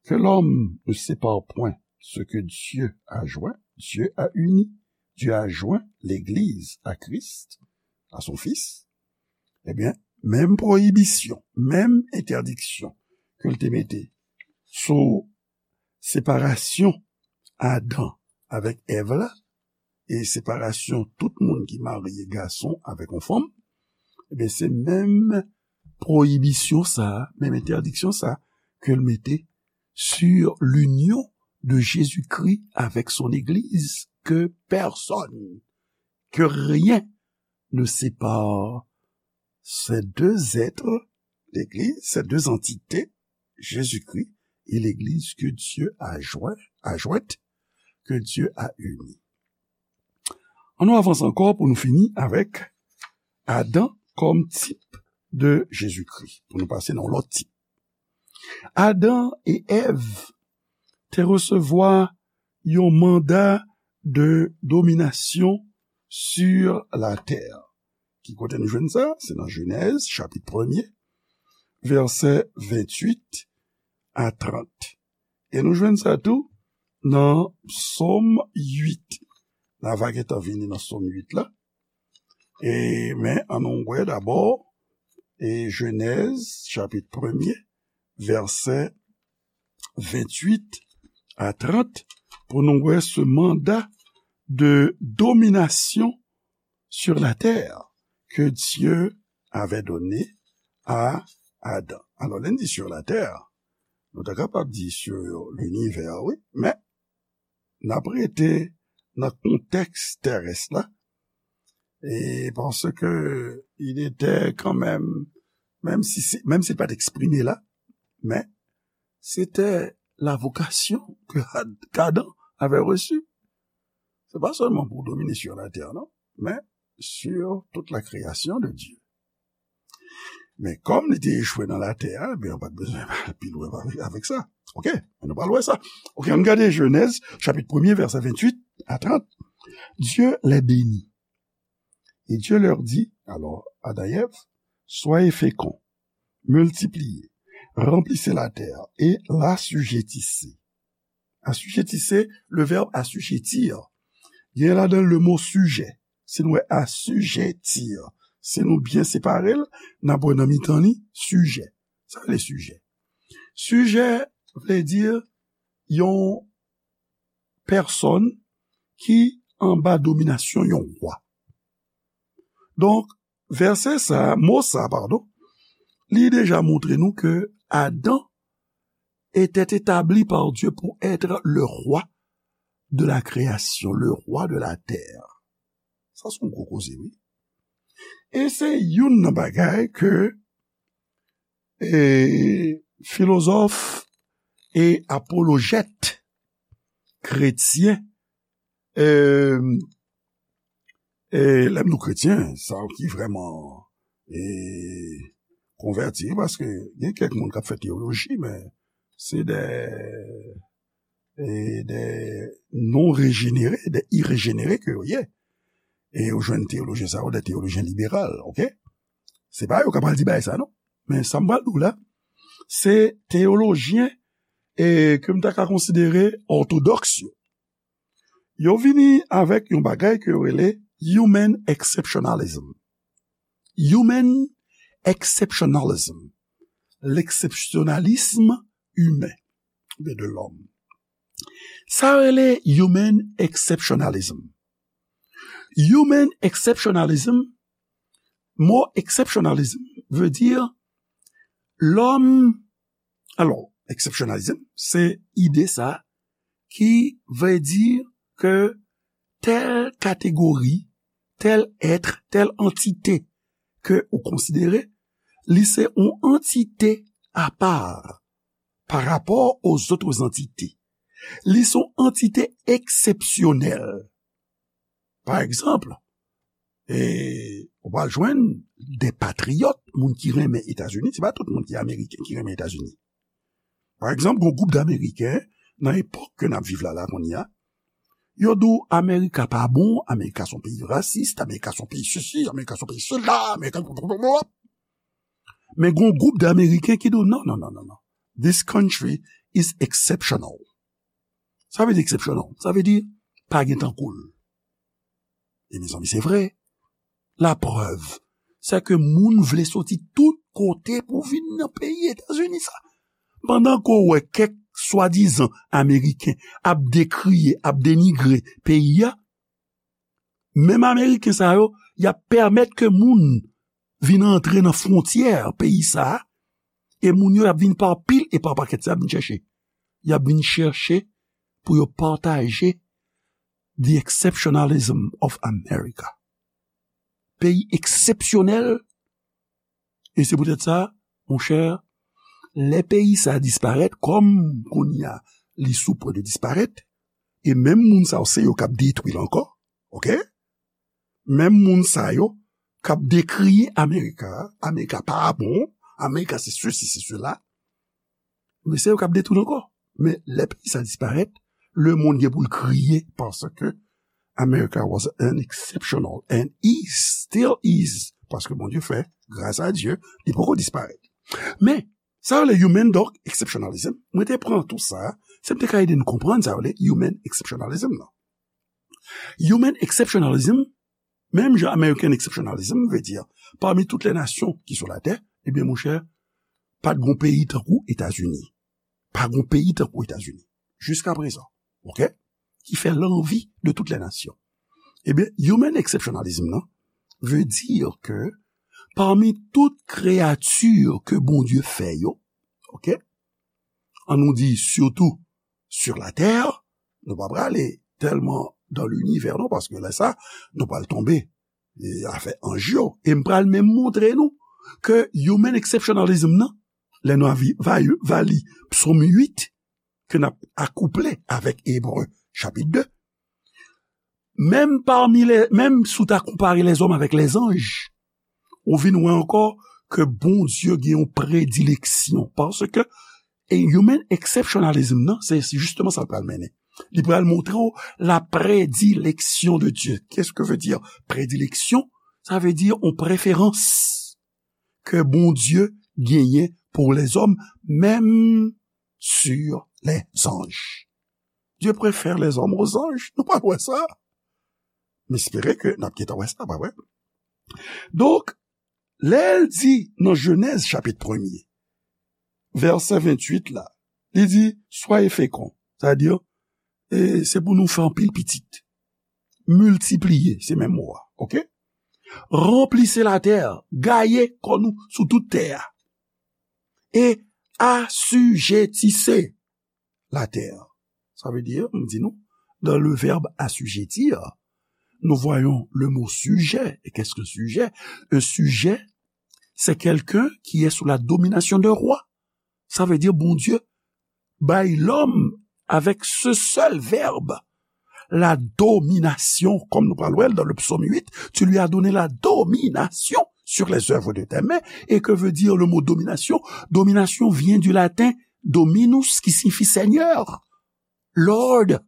que l'homme ne sépare point ce que Dieu a joint, Dieu a uni, Dieu a joint l'Église à Christ, à son Fils, ebyen, menm pwoyibisyon, menm entèdiksyon ke l te mete sou separasyon Adan avèk Èv la, e separasyon tout moun ki marye gason avèk yon fanm, ebyen, se menm pwoyibisyon sa a, menm entèdiksyon sa a ke l mete sur l'union de Jésus-Christ avec son Église, que personne, que rien ne sépare ces deux êtres, l'Église, ces deux entités, Jésus-Christ et l'Église que Dieu a joint, a jointe, que Dieu a unie. Ann nou avanse ankò pou nou fini avèk Adan kòm tip de Jezikri, pou nou pase nan yon lòt tip. Adan e Èv te resevwa yon manda de dominasyon sur la terre. Ki kote nou jwenn sa? Se nan Jenèz, chapit premye, vèsè venntuit a trant. E nou jwenn sa tou nan Sòm uit. N a va gentan vini nan Sòm uit la. E, men, ann nou wè dabò, e Jenèz, chapit premye, vèsè venntuit a trant, pou nou wè ce mandat de domination sur la terre que Dieu avait donné à Adam. Alò, lè n di sur la terre, nou ta kapab di sur l'univers, wi, men n ap rete nan kontèks terès la, e paske il était quand même, menm si, se- menm si l pa t eksprime la, men se te la vocation que Ad- qu'Adam avait reçue. Se pa sèlman pou domine sur la terre, non, men sur toute la création de Dieu. Men kòm li te echwe nan latè a, ebyen, ou pa t bezwen al pi lwen avèk, avèk sa. Oke? Nou pral wè sa. Oke, ann gade Jenèz, chapit premye, vèsè venntuit a trant. Dieu les bénit. Et Dieu leur dit, alors, Adam et Ève, soyez féconds, multipliez, remplissez la terre et l'assujettissez. Assujettissez, le verbe assujettir, gen ladan le mo sujet. Si nou wè assujettir, si nou byen separe l, n ap wè nan mitan li, sujet. Sa vle sujet. Sujet vle di yon pèsòn ki anba dominasyon yon wa. Donk, vèsè sa, mo sa, padon, li deja montre nou ke Adam était établi par Dieu pour être le roi de la création, le roi de la terre. Sa se yon gwo koze, wi. E se youn nan bagay ke e, filozòf e apolojèt kretyen, e, e, lè m di kretyen, sa ki vrèman e, konvèti, paske gen kèk moun k ap fè teyoloji, men se de, e, de non rejenere, de irejenere ke yo ye. E yo jwenn teyolojyen sa yo, de teyolojyen liberal, oke? Se pa yo k ap al di bagay sa, non. Men sa m pral di w la, se teyolojyen e ke m ta ka konsidere òtodòks yo. Yo vini avèk yon bagay ke yo rele human exceptionalism. Human exceptionalism. L'exceptionnalisme humain. Oubyen de l'homme. Sa rele human exceptionalism. Human exceptionalism, mo exceptionalism vle di lòm, alò, exceptionalism, se ide sa ki vle di ke tèl kategori, tèl èt, tèl antite ke ou konsidere, li se yon antite apa pa rapò aux autres entités. Li se yon antite eksepsyonèl. Pa egzanp, e, ou pral jwenn de patriyòt, moun ki renmen Etazini, se pa tout moun ki ameriken ki renmen Etazini. Pa egzanp, gon gwoup d Ameriken, nan epòk ke n ap viv la, la kounye a, Yo di w Amerika pa bon, Amerika se yon peyi rasis, Amerika se yon peyi sesi, Amerika se yon peyi sela, Amerika. Men gen yon gwoup de Ameriken ki di w non, non, non, non, non. This country is exceptional. Sa vle di exceptional. Sa vle di pa gen tankou l. E mezanmi, se vre. Laprèv, se ke moun vle soti tout kote pou vin nan peyi Etazini sa. Pandan ke w wè kèk swadizan Ameriken ap dekriye, ap denigre peyi a, menm Ameriken sa yo, y ap pèmèt ke moun vin antre nan fwontyè peyi sa a, e moun yo y ap vin pa pil e pa pakèt, se y ap vin chèche. Y ap vin chèche pou yo pataje the exceptionalism of America. Peyi eksepsyonèl, e se poutèt sa, monchè, lè peyi sa disparèt, kòm kounye a li sou pwen de disparèt, e menm moun sa yo se yo k ap detwi l ankò, oke? Menm moun sa yo k ap dekriye Amerika, Amerika pa bon, Amerika se sesi, se sela, men se yo k ap detwi l ankò. Men lè peyi sa disparèt, lemonn gen pou l kriye paske America was an exceptional and is, still is, paske Bondye fè, gras a Dye, li poko disparèt. Men, sa yo rele human, donk, exceptionalism, mwen te pran tou sa, se m te ka ede n konprann sa yo rele human exceptionalism nan. Human exceptionalism, menm jan American exceptionalism vle di, pami tout lè nasyon ki sou latè, ebyen, monchè, pa t gon peyi tankou Etazini. Pa gon peyi tankou Etazini. Jiska prezan. Oke? Ki fè lanvi de tout lè nasyon. Ebyen, human exceptionalism nan vle di ke pami tout kreyati ke Bondye fè yo, oke? An nou di, sitou sur la terre, nou pa prale tèlman dans l'univers non, paske lè sa, nou pral tonbe, e, afè anj yo. E m pral menm montre nou ke human exceptionalism nan, lè nou avi-, va-, va li Psaume huit, ke n ap akouple avèk Ebre chapit de, menm pami lè, menm si w ta konpare lèzòm avèk lèzanj, ou vin wè ankò ke Bondye gen yon predileksyon. Paske, e human exceptionalism nan, se, se jisteman sa l pral mennen. Li pral montre w la prédilection de Dieu. Qu'est-ce que veut dire prédilection? Sa vle di yon preferans ke Bondye genyen pou lèzòm, menm sur les anges. Dieu préfère les hommes aux anges. Nou pral wè sa. M espere ke n ap gentan wè sa, pa vre? Donk, lè l di nan Jenèz chapit premye, vèsè venntuit la, li di, soyez féconds, sa vle di, e, se pou nou fè anpil pitit. Miltipliye, se menm mo a, oke? Remplissez la terre, gaye kò nou sou tout tè a. E assujettissez la terre. Sa vle di, m di nou, dans le verbe assujettir, nous voyons le mot sujet. Et qu'est-ce qu'un sujet? Un sujet, c'est quelqu'un qui est sous la domination d'un roi. Sa vle di, Bondye bay lòm avec ce seul verbe, la domination, comme nous parlons dans le psaume huit, tu lui as donné la domination sur les œuvres de tes mains. Et que veut dire le mot domination? Domination vient du latin dominus, qui signifie Seigneur, Lord,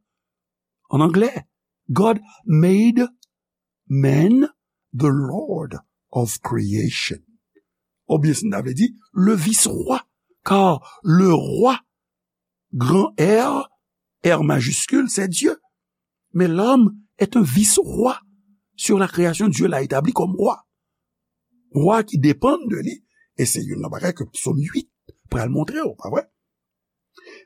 en anglais. God made man the Lord of creation. Oubyen si n ta vle di, le vice-roi, car le roi, grand R, R majuscule, c'est Dieu. Mais l'homme est un vice-roi sur la création. Dieu l'a établi comme roi. Roi ki depann de li, e se youn nan bagay ke Psaume huit pral montre w, pa vre?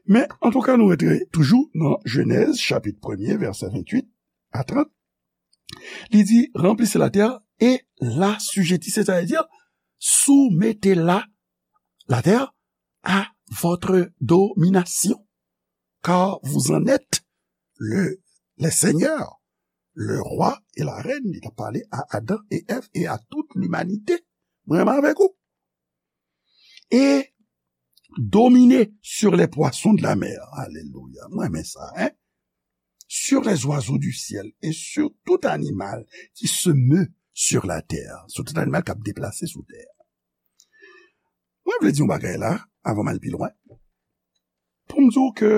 Men, antouka, nou rete toujou nan Jenèz, chapit premye, vèsè venntuit a trant. Li di, remplissez la terre et l'assujettissez, c'est-à-dire, soumettez la, la terre à votre domination, car vous en êtes le, les seigneurs, le roi et la reine. Li t ap pale a Adan e Èv e a tout limanite. Mwen menm avèk ou. Et dominez sur les poissons de la mer. Alelouya. Mwen renmen sa, hein? Sur les oiseaux du ciel et sur tout animal qui se meut sur la terre. Sur tout animal k ap deplase sou tè a. Mwen vle di yon bagay la, avan m al pi lwen. Pou m di w ke,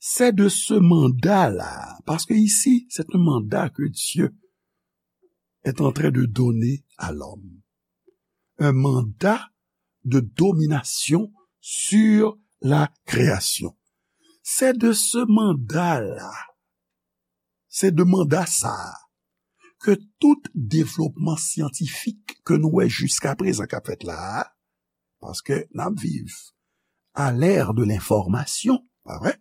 C'est de ce mandat-là, parce que ici, c'est un mandat que Dieu est en train de donner à l'homme. Un mandat de domination sur la création. C'est de ce mandat-là, c'est de mandat ça, que tout développement scientifique que nous avons jusqu'à présent qu'a fait là, parce que nous vivons à l'ère de l'information, pas vrai?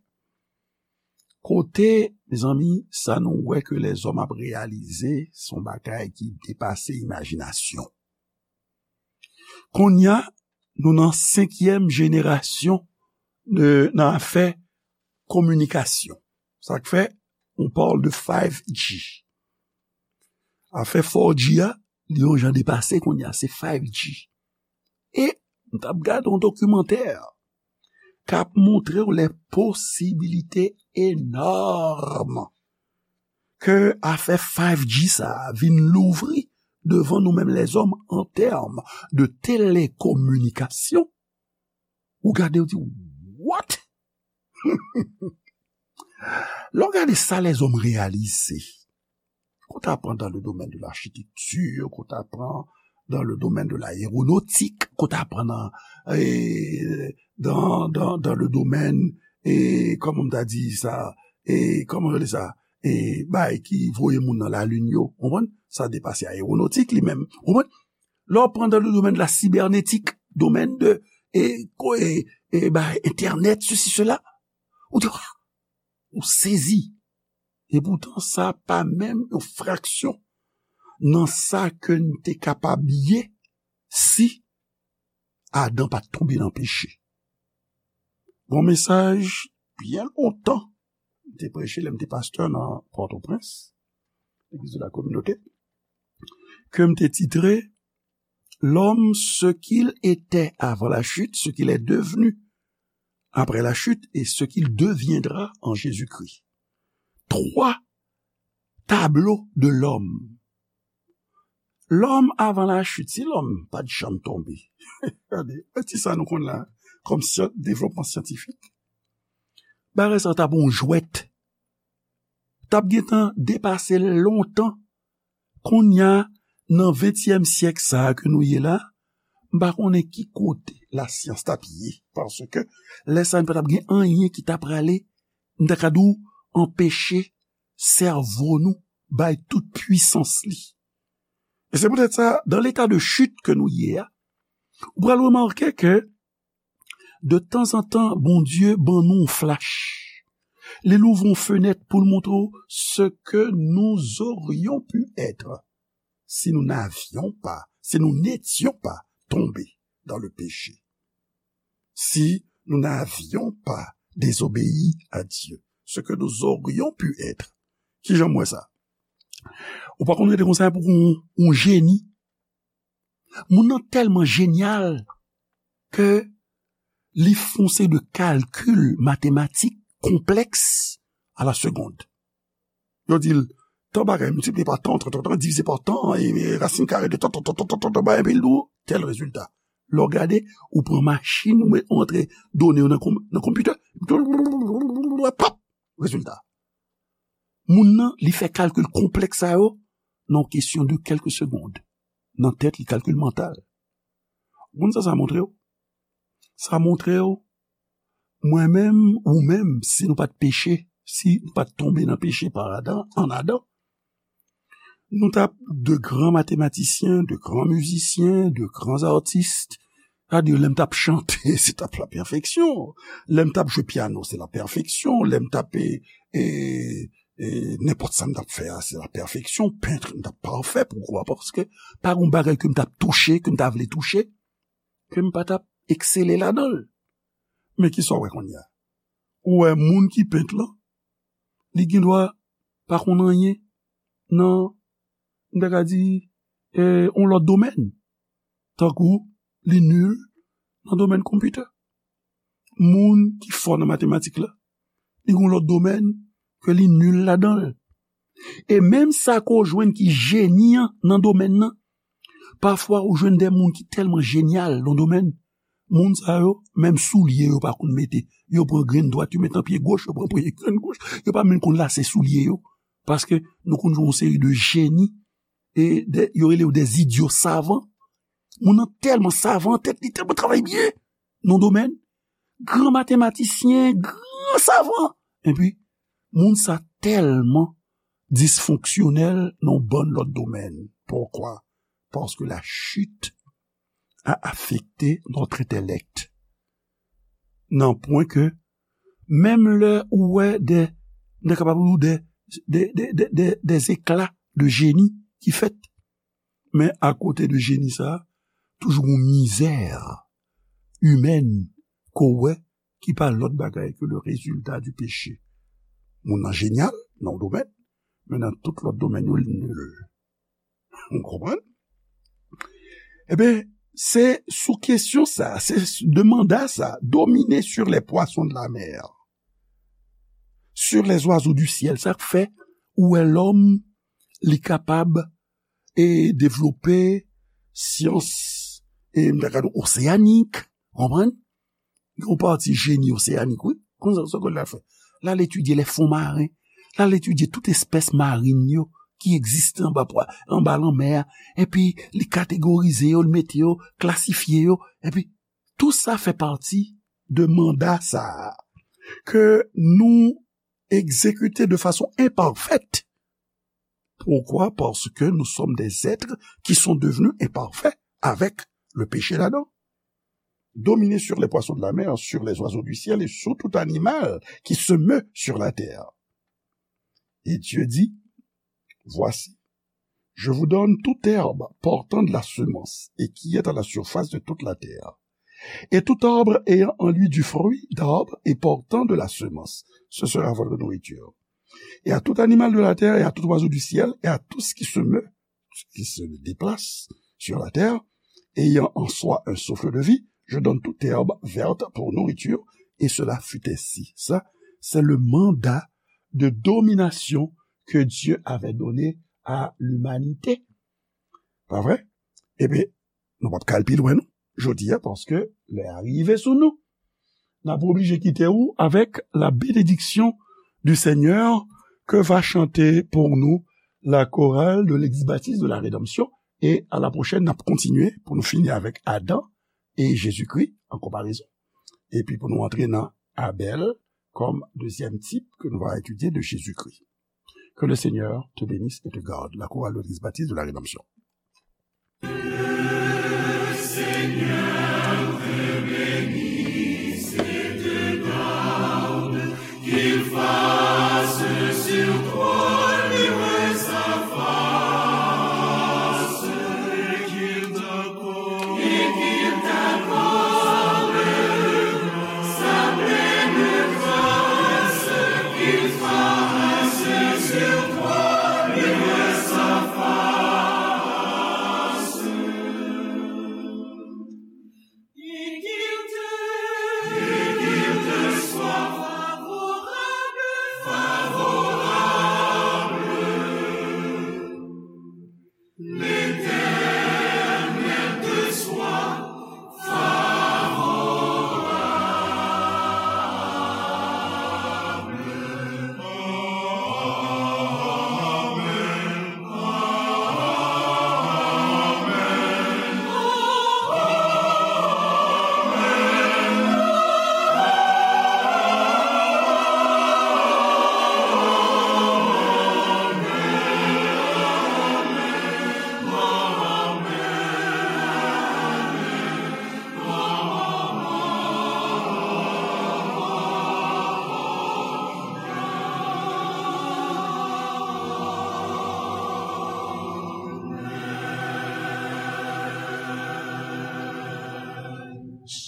Kote, mezanmi, sa nou wè ke lèzòm ap reyalize, se yon bagay ki depase imajinasyon. Kounye a, nou nan senkyèm jenerasyon de, nan afè kominikasyon. Sa k fè, on parle de five G. Afè four G a, li yon jan depase kounye a, se five G. E m t ap gade yon dokimantè k ap montre w les possibilités énormes ke afè five G sa a vin louvri devan nou menm lèzòm an tèm de telekominikasyon. Ou gade, ou di, what? Lè w gade sa lèzòm reyalize, qu'on t'apprend dans le domaine de l'architecture, qu'on t'apprend dans le domaine de l'aéronautique, qu'on t'apprend dans, eh, dans, dans, dans le domaine, eh, kòman m ta di sa, eh, kòman yo rele sa, eh, bay ki voye moun nan lalin yo, ou konprann? Sa depase aewonotik li menm, ou konprann? Lè w pran dans le domaine de la cybernétique, domaine de, eh, ko-, eh, eh, bay, internet, ceci, cela, ou di, ou sezi. E poutan, sa pa menm yon fraksyon nan sa ke n te kapab ye si Adan pa t tonbe nan peche. Gon mesaj byen lontan, m te preche lè m te pastè nan Pòtoprens, Legliz de la Kominote, ke m te titre L'homme, ce qu'il était avant la chute, ce qu'il est devenu après la chute et ce qu'il deviendra en Jésus-Christ. Twa tablo de lòm. Lòm avan lachit, si lòm pa t janm tonbe. Gade, e ti sa nou konn la, kòm syan-, devlopman syantifik. Bagay sa t ap yon jwèt. T ap gentan depase l lontan. Kounye a, nan ventyèm syèk sa a ke nou ye la, m pa konnen ki kote lasyans t ap ye, paske lè sa a, n pa t ap gen anyen ki ta prale, m ta ka di w, anpeche sèvo nou bay tout pwisans li. E se poutèt sa, dans l'état de chute ke nou ye a, ou pral remake ke de tanzantan, Bondye ban nou yon flach. Li louvri yon fenèt pou l montre w ce que nous aurions pu être si nous n'avions pas, si nous n'étions pas tombés dans le péché. Si nous n'avions pas désobéi à Dieu, ce que nous aurions pu être. Kijan m wè sa? Ou pa konn rete konsa pou yon, yon jeni. Moun nan tèlman jenyal ke li fè yon seri de kalkil matematik konplèks à la seconde. Yo di l, tan bagay miltipliye pa tan, tan, tan, tan, divize pa tan, e, e rasin kare de tan, tan, tan, bagay, epi l di w, tèl rezilta. Lè w gade, ou pran machin, ou met, ou antre done yo nan konm-, nan konpitè, pap, rezilta. Moun nan, li fè kalkil konplèks sa yo nan kesyon de kèlke segond. Nan tèt li, kalkil mantal. Ou konn sa sa montre w? Sa montre w, mwen menm, ou menm, si nou pa t peche, si nou pa t tonbe nan peche pa Adan, an Adan, nou t ap de gran matematisyen, de gran mizisyen, de gran atis. Sa di, lè m t ap chante, se t ap la pèfeksyon. Lè m t ap jwe pyano, se la pèfeksyon. Lè m t ap, e, e, e, nenpòt sa m t ap fè a, se la pèfeksyon. Pent, m t ap pafè, poukwa? Paske pa gen bagay ke m t ap touche, ke m ta vle touche, ke m pa t ap eksele ladan l. Men kisa w wè kounye a? Ou wè moun ki pent lan, li gendwa pa konn anyen nan, m ta ka di, e, yon lòt domèn. Tankou li nil nan domèn konpitè. Moun ki fò nan matematik la, li gen yon lòt domèn ke li nil ladan l. E menm sa ke w jwenn ki jeni an nan domèn nan, pafwa ou jwenn de moun ki tèlman jenyal nan domèn, Moun sa yo, menm soulye yo pa konn mete. Yo pran grenn dwat, yo met nan pye goch, yo pran pran grenn goch. Yo pa menm konn lase soulye yo. Paske nou konn jwenn yon seri de jeni, e de, yo rele yo des idiots savants. Moun nan tèlman savan, tèt li tèlman travay byen nan domèn. Gran matematisyen, gran savan. Epi, moun sa tèlman disfonksyonèl nan yon bann lòt domèn. Poukwa? Paske la chit a afekte notre intellect. Nan pwen ke, menm lè ou wè de, nou kapab di de, de, de, de, de, des éclats de génie ki fèt, men akote de jeni sa, toujou yon mizè imèn ke w wè ki pa lòt bagay ke le résultat du péché. Moun nan jenyal nan yon domèn, men nan tout lòt domèn yo, li nil. Ou konprann? Ebyen, se sou kesyon sa, se s-, de manda sa, dominer sur les poissons de la mer, sur les oiseaux du ciel, sa k fè ou wè lòm, li kapab, e, devlope syans, e, m ta ka di oseyanik, konprann? Yon pati jeni oseyanik, wi. Konn sa, sa ke l al fè? L al etidye les fonds marins. L al etidye tout espès marin yo ki egziste anba pwa-, anba lanmè a. Epi, li kategorize yo, li mete yo, klasifye yo. Epi, tou sa fè pati de manda sa a ke nou egzekite de fason enpafèt. Poukwa? Paske nou sòm des êtres qui sont devenus imparfaits avec le péché d'Adam. Dominer sur les poissons de la mer, sur les oiseaux du ciel et sur tout animal qui se meut sur la terre. Et Dieu dit, Voici, je vous donne toute herbe portant de la semence et qui est à la surface de toute la terre, et tout arbre ayant en lui du fruit d'arbre et portant de la semence, ce sera votre nourriture. Et à tout animal de la terre, et à tout oiseau du ciel, et à tout ce qui se meut, ce qui se déplace sur la terre, ayant en soi un souffle de vie, je donne toute herbe verte pour nourriture, et cela fut ainsi. Ça, c'est le mandat de domination que Dieu avait donné à l'humanité. Pa vre? Ebyen, nou p ap ka al pi lwen, non, jodi a, paske lè a rive sou nou. N ap oblije kite ou avec la bénédiction du Seigneur que va chanter pour nous la chorale de l'Ex-Baptiste de la Rédemption. E a la pwochèn, n ap kontinye pou nou fini avèk Adan e Jezikri an konparezon. Epi pou nou antre nan Abèl kòm dezyèm tip ke nou va etidye de Jezikri. Que le Seigneur te bénisse et te garde. La chorale de l'Eglise baptiste de la Rédemption.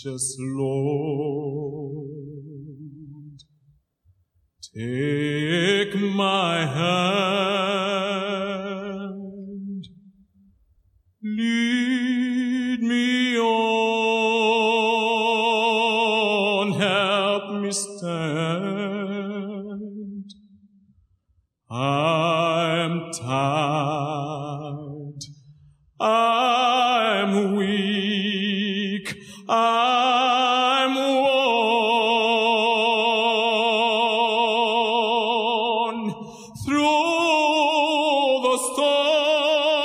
Precious Lord, take my hand, lead me on, help me stand. I'm tired.